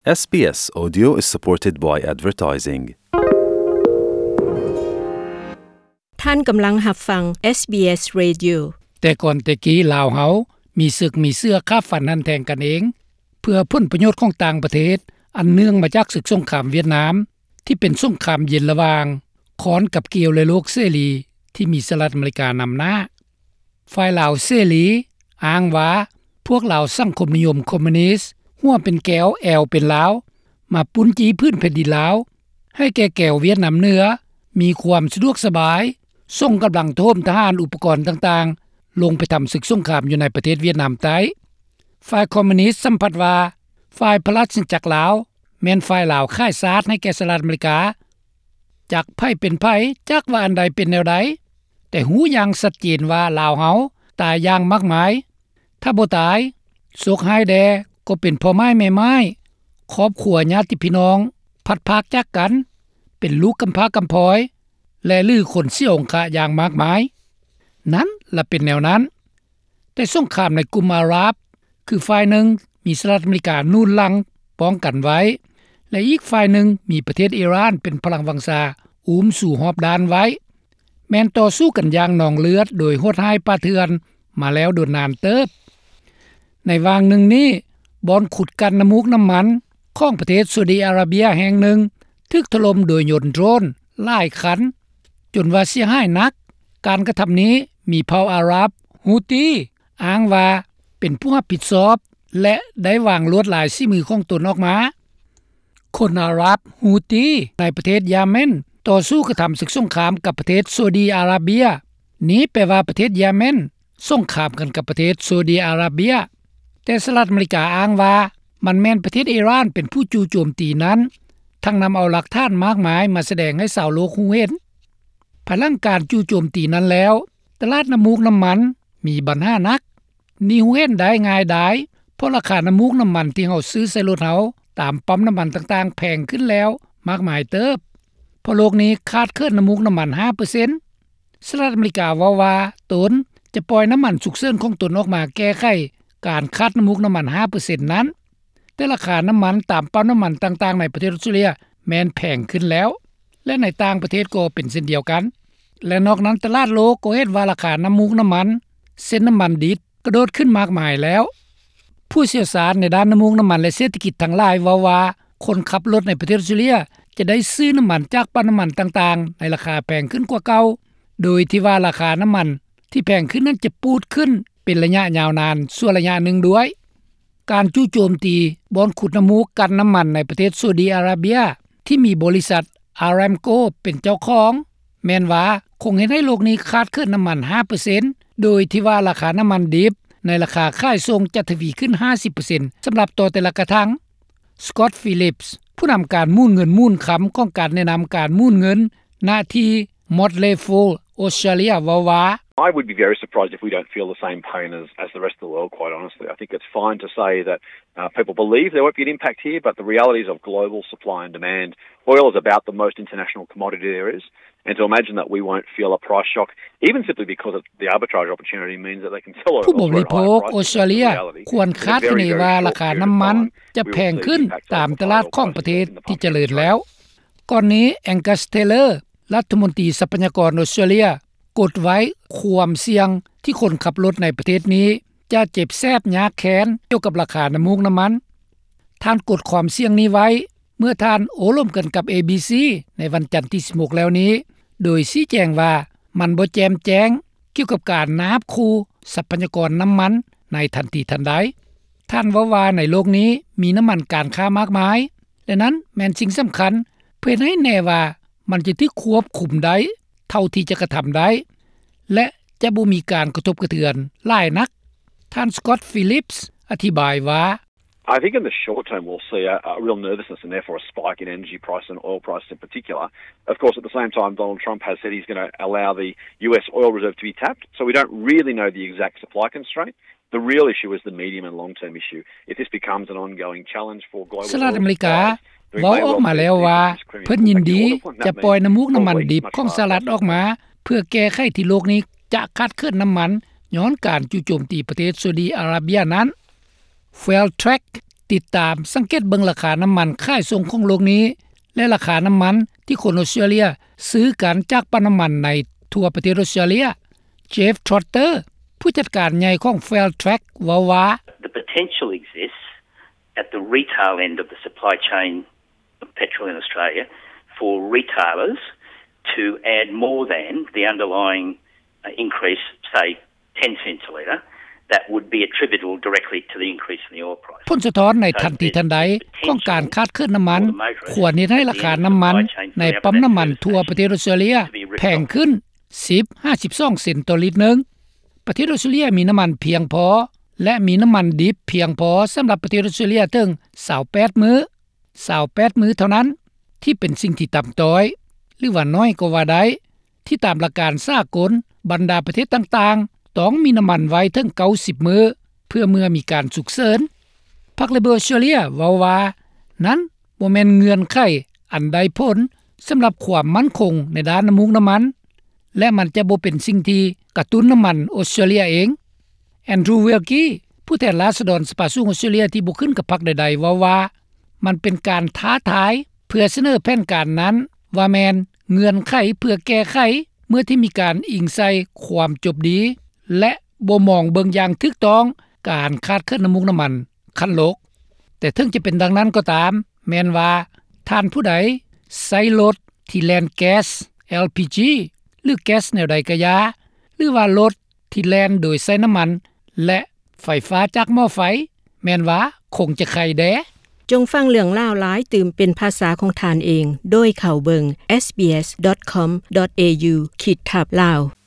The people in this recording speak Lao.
ເອສບີເອສ Audio is supported by advertising. ທ່ານກຳລັງຮັບຟັງ ເອສບີເອສ Radio. ແຕ່ກ່ອນແຕ່ກີ້ ລາວເຮົາມີເສິກມີເຊື້ອຂ້າຟັນຫັນແທງກັນເອງ ເພື່ອຜົນປະໂຫຍດຂອງຕ່າງປະເທດ ອັນເນື່ອງມາຈາກເສິກສົງຄາມຫວຽດນາມ ທີ່ເປັນສົງຄາມເຢັນລະຫວ່າງຄ້ອນກັບກ່ຽວ ແລະ ໂລກເສລີ ທີ່ມີສະຫະລັດອາເມລິການຳໜ້າ. ຝ່າຍລາວເສລີອ້າງວ່າ ພວກລາວສັງຄົມນິຍົມຄອມມູນິດ ຫົວເປັນແກ້ວແອວເປັນລາວ ມາປຸ້ນຈີ້ພື້ນແຜ່ນດິນລາວ ໃຫ້ແກ່ແກວຫວຽດນາມເໜືອ ມີຄວາມສະດວກສະບາຍ ສົ່ງກຳລັງໂຖມທະຫານ ອຸປະກອນຕ່າງໆ ລົງໄປທຳເສິກສົງຄາມຢູ່ໃນປະເທດຫວຽດນາມໃຕ້. ຝ່າຍຄອມມູນິດສຳພັດວ່າ ຝ່າຍພະລາຊະອານາຈັກລາວ ແມ່ນຝ່າຍລາວຂາຍຊາດໃຫ້ແກ່ສະຫະລັດອາເມລິກາ. ຈັກໃຜເປັນໃຜ, ຈັກວ່າອັນໃດເປັນແນວໃດ, ແຕ່ຮູ້ຢ່າງຊັດເຈນວ່າລາວເຮົາຕາຍຢ່າງມາກມາຍ. ຖ້າບໍ່ຕາຍ, ໂຊກຮ້າຍແດ່ກໍເປັນພໍ່ໝ້າຍແມ່ໝ້າຍ, ຄອບຄົວຍາດຕິພີ່ນ້ອງພັດພາກຈາກກັນ, ເປັນລູກກຳພ້າກຳພ້ອຍ ແລະ ຫຼື ຄົນເສຍອົງຄະຢ່າງມາກມາຍ. ນັ້ນລະເປັນແນວນັ້ນ. ແຕ່ສົງຄາມໃນກຸ່ມອາຣັບ ຄືຝ່າຍໜຶ່ງມີສະຫະລັດອາເມລິກາໜູນຫຼັງປ້ອງກັນໄວ້ ແລະ ອີກຝ່າຍໜຶ່ງມີປະເທດອີຣານເປັນພະລັງວັງຊາອຸ້ມສູ່ຮອບດ້ານໄວ້, ແມ່ນຕໍ່ສູ້ກັນຢ່າງນອງເລືອດໂດຍໂຫດຮ້າຍປ່າເຖື່ອນມາແລ້ວດົນນານເຕີບ. ໃນຫວ່າງໜຶ່ງນີ້, ບ່ອນຂຸດກັ່ນນ້ຳມູກນ້ຳມັນຂອງປະເທດຊາອຸດີອາຣາເບຍແຫ່ງໜຶ່ງ ຖືກຖະຫຼົ່ມໂດຍຍົນໂດຣນຫຼາຍຄັນ ຈົນວ່າເສຍຫາຍໜັກ. ການກະທຳນີ້ມີເຜົ່າອາຣັບ ຮູຕີ ອ້າງວ່າເປັນຜູ້ຮັບຜິດຊອບ ແລະ ໄດ້ວາງລວດລາຍສີມືຂອງຕົນອອກມາ. ຄົນອາຣັບ ຮູຕີ ໃນປະເທດຢາເມັນ ຕໍ່ສູ້ກະທຳເສິກສົງຄາມກັບປະເທດຊາອຸດີອາຣາເບຍ. ນີ້ແປວ່າປະເທດຢາເມັນສົງຄາມກັນກັບປະເທດຊາອຸດີອາຣາເບຍ. ແຕ່ສະຫະລັດອາເມລິກາອ້າງວ່າ ມັນແມ່ນປະເທດອີຣານເປັນຜູ້ຈູ່ໂຈມຕີນັ້ນ, ທັງນຳເອົາຫຼັກຖານມາກມາຍມາສະແດງໃຫ້ຊາວໂລກຮູ້ເຫັນ. ພາຍຫຼັງການຈູ່ໂຈມຕີນັ້ນແລ້ວ, ຕະຫຼາດນ້ຳມູກນ້ຳມັນມີບັນຫາໜັກ. ນີ້ຮູ້ເຫັນໄດ້ງ່າຍດາຍ, ເພາະລາຄານ້ຳມູກນ້ຳມັນທີ່ເຮົາຊື້ໃສ່ລົດເຮົາຕາມປ້ຳນ້ຳມັນຕ່າງໆ ແພງຂຶ້ນແລ້ວມາກມາຍເຕີບ, ເພາະໂລກນີ້ຂາດເຂີນນ້ຳມູກນ້ຳມັນຫ້າເປີເຊັນ. ສະຫະລັດອາເມລິກາເວົ້າວ່າຕົນຈະປ່ອຍນ້ຳມັນສຸກເສີນຂອງຕົນອອກມາແກ້ໄຂການຂາດນ້ຳມູກນ້ຳມັນຫ້າເປີເຊັນນັ້ນ, ແຕ່ລາຄານ້ຳມັນຕາມປ້ຳນ້ຳມັນຕ່າງໆໃນປະເທດອອສເຕຣເລຍແມ່ນແພງຂຶ້ນແລ້ວ ແລະ ໃນຕ່າງປະເທດກໍເປັນເຊັ່ນດຽວກັນ. ແລະ ນອກນັ້ນ, ຕະຫຼາດໂລກກໍເຫັນວ່າລາຄານ້ຳມູກນ້ຳມັນ ເຊັ່ນ ນ້ຳມັນດິບ ກະໂດດຂຶ້ນມາກມາຍແລ້ວ. ຜູ້ຊ່ຽວຊານໃນດ້ານນ້ຳມູກນ້ຳມັນ ແລະ ເສດຖະກິດທັງຫຼາຍເວົ້າວ່າ ຄົນຂັບລົດໃນປະເທດອອສເຕຣເລຍຈະໄດ້ຊື້ນ້ຳມັນຈາກປ້ຳນ້ຳມັນຕ່າງໆໃນລາຄາແພງຂຶ້ນກວ່າເກົ່າ, ໂດຍທີ່ວ່າລາຄານ້ຳມັນທີ່ແພງຂຶ້ນນັ້ນຈະປູດຂຶ້ນເປັນໄລຍະຍາວນານຊົ່ວໄລຍະໜຶ່ງດ້ວຍ. ການຈູ່ໂຈມຕີບ່ອນຂຸດນ້ຳມູກກັ່ນນ້ຳມັນໃນປະເທດຊາອຸດີອາຣາເບຍ ທີ່ມີບໍລິສັດອາຣາມໂກເປັນເຈົ້າຂອງ ແມ່ນວ່າຄົງເຮັດໃຫ້ໂລກນີ້ຂາດເຂີນນ້ຳມັນຫ້າເປີເຊັນ ໂດຍທີ່ວ່າລາຄານ້ຳມັນດິບໃນລາຄາຂາຍສົ່ງຈະທະວີຂຶ້ນຫ້າສິບເປີເຊັນ ສຳລັບຕໍ່ແຕ່ລະກະຖັງ. ສະກອດ ຟີລິບ ຜູ້ນຳການໝູນເງິນໝູນຄຳຂອງການແນະນຳການໝູນເງິນ ນະທີ່ Motley Fool Australia ເວົ້າວ່າ I would be very surprised if we don't feel the same pain as, as the rest of the world, quite honestly. I think it's fine to say that, uh, people believe there won't be an impact here, but the realities of global supply and demand, oil is about the most international commodity there is, and to imagine that we won't feel a price shock, even simply because of the arbitrage opportunity, means that they can sell oil ຜູ້ບໍລິໂພກອອສເຕຣເລຍຄວນຄາດຄະເນວ່າລາຄານ້ຳມັນຈະແພງຂຶ້ນຕາມຕະຫຼາດຂອງປະເທດທີ່ຈະເລີນແລ້ວ. ກ່ອນນີ້ Angus Taylor ລັດຖະມົນຕີຊັບພະຍາກອນອອສເຕຣເລຍ ກົດໄວ້ຄວາມສ່ຽງທີ່ຄົນຂັບລົດໃນປະເທດນີ້ຈະເຈັບແສບຍາກແຄ້ນກ່ຽວກັບລາຄານ້ຳມູກນ້ຳມັນ. ທ່ານກົດຄວາມສ່ຽງນີ້ໄວ້ເມື່ອທ່ານໂອ້ລົມກັນກັບ ເອບີຊີ ໃນວັນຈັນທີສິບຫົກແລ້ວນີ້, ໂດຍຊີ້ແຈງວ່າມັນບໍ່ແຈ່ມແຈ້ງກ່ຽວກັບການນາບຂູ່ຊັບພະຍາກອນນ້ຳມັນໃນທັນທີທັນໃດ. ທ່ານເວົ້າວ່າໃນໂລກນີ້ມີນ້ຳມັນການຄ້າມາກມາຍ ແລະ ນັ້ນແມ່ນສິ່ງສຳຄັນ ເພື່ອເຮັດໃຫ້ແນ່ວ່າມັນຈະຖືກຄວບຄຸມໄດ້ເທົ່າທີ່ຈະກະທຳໄດ້ ແລະ ຈະບໍ່ມີການກະທົບກະເທືອນຫຼາຍນັກ. ທ່ານ Scott Phillips ອະທິບາຍວ່າ I think in the short term we'll see a, a real nervousness and therefore a spike in energy price and oil prices in particular. Of course, at the same time, Donald Trump has said he's gonna allow the U S oil reserve to be tapped, so we don't really know the exact supply constraint. The real issue is the medium and long-term issue. If this becomes an ongoing challenge for global oil supplies, then it may well see increased Kremlin pullback in oil deployment. That means oil weighs much faster than oil. ສະຫະລັດອາເມລິກາເວົ້າອອກມາແລ້ວວ່າ ເພິ່ນຍິນດີຈະປ່ອຍນ້ຳມູກນ້ຳມັນດິບຂອງສະຫະລັດອອກມາ ເພື່ອແກ້ໄຂທີ່ໂລກນີ້ຈະຂາດເຂີນນ້ຳມັນຍ້ອນການຈູ່ໂຈມຕີປະເທດຊາອຸດີອາຣາເບຍນັ້ນ. Phil Tracz ຕິດຕາມສັງເກດເບິ່ງລາຄານໍ້າມັນຂາຍສົ່ງຂອງໂລກນີ້ ແລະ ລາຄານໍ້າມັນທີ່ຄົນອອສເຕຣເລັຽຊື້ກັນຈາກປ້ຳນໍ້າມັນໃນທົ່ວປະເທດອອສເຕຣເລັຽ. Jeff Trotter ຜູ້ຈັດການໃຫຍ່ຂອງ Fairtrax ເວົ້າວ່າ: The potential exists at the retail end of the supply chain of petrol in Australia for retailers to add more than the underlying increase, say, ten cents a litre, that would be attributable directly to the increase in the oil price. ຜົນສະທ້ອນໃນທັນທີທັນໃດຂອງການຂາດເຂີນນໍ້າມັນ ຄວນເຮັດໃຫ້ລາຄານໍ້າມັນໃນປ້ຳນໍ້າມັນທົ່ວປະເທດອອສເຕຣເລັຽແພງຂຶ້ນ ສິບຫາສິບສອງເຊັນຕໍ່ລິດໜຶ່ງ. ປະເທດອອສເຕຣເລັຽມີນໍ້າມັນພຽງພໍ ແລະ ມີນໍ້າມັນດິບພຽງພໍສຳລັບປະເທດອອສເຕຣເລັຽເຖິງ ຊາວແປດມື້ ຊາວແປດມື້ເທົ່ານັ້ນ ທີ່ເປັນສິ່ງທີ່ຕ່ຳຕ້ອຍ ຫຼືວ່າໜ້ອຍກໍວ່າໄດ້ ທີ່ຕາມຫຼັກການສາກົນ ບັນດາປະເທດຕ່າງໆ ຕ້ອງມີນໍ້າມັນໄວ້ເຖິງ ເກົ້າສິບມື້ ເພື່ອເມື່ອມີການສຸກເສີນ. ພັກ Labor ອອສເຕຣເລັຽເວົ້າວ່າ ນັ້ນບໍ່ແມ່ນເງື່ອນໄຂອັນໄດ້ຜົນສຳລັບຄວາມໝັ້ນຄົງໃນດ້ານນໍ້າມູກນໍ້າມັນ ແລະ ມັນຈະບໍ່ເປັນສິ່ງທີ່ກະຕຸ້ນນໍ້າມັນອອສເຕຣເລັຽເອງ. Andrew Wilkie ຜູ້ແທນລາຊະດອນສະພາສູງອອສເຕຣເລັຽທີ່ບໍ່ຂຶ້ນກັບພັກໃດໆ ເວົ້າວ່າ ມັນເປັນການທ້າທາຍເພື່ອສະເໜີແຜນການນັ້ນ ວ່າແມ່ນເງື່ອນໄຂເພື່ອແກ້ໄຂ ເມື່ອທີ່ມີການອີງໃສ່ຄວາມຈົບດີ ແລະ ບໍ່ມອງເບິ່ງຢ່າງຖືກຕ້ອງການຂາດເຂີນນໍ້າມູກນໍ້າມັນຂັ້ນໂລກ. ແຕ່ເຖິງຈະເປັນດັ່ງນັ້ນກໍຕາມ ແມ່ນວ່າທ່ານຜູ້ໃດໃຊ້ລົດທີ່ແລ່ນແກັສ LPG ຫຼື ແກັສແນວໃດກະຢ່າ ຫຼືວ່າລົດທີ່ແລ່ນໂດຍໃຊ້ນໍ້າມັນ ແລະ ໄຟຟ້າຈາກໝໍ້ໄຟ ແມ່ນວ່າຄົງຈະໄຄແດ່. ຈົ່ງຟັງເລື່ອງລາວຫຼາຍຕື່ມເປັນພາສາຂອງທ່ານເອງ ໂດຍເຂົ້າເບິ່ງ SBS.com.au ຂີດທັບ Lao.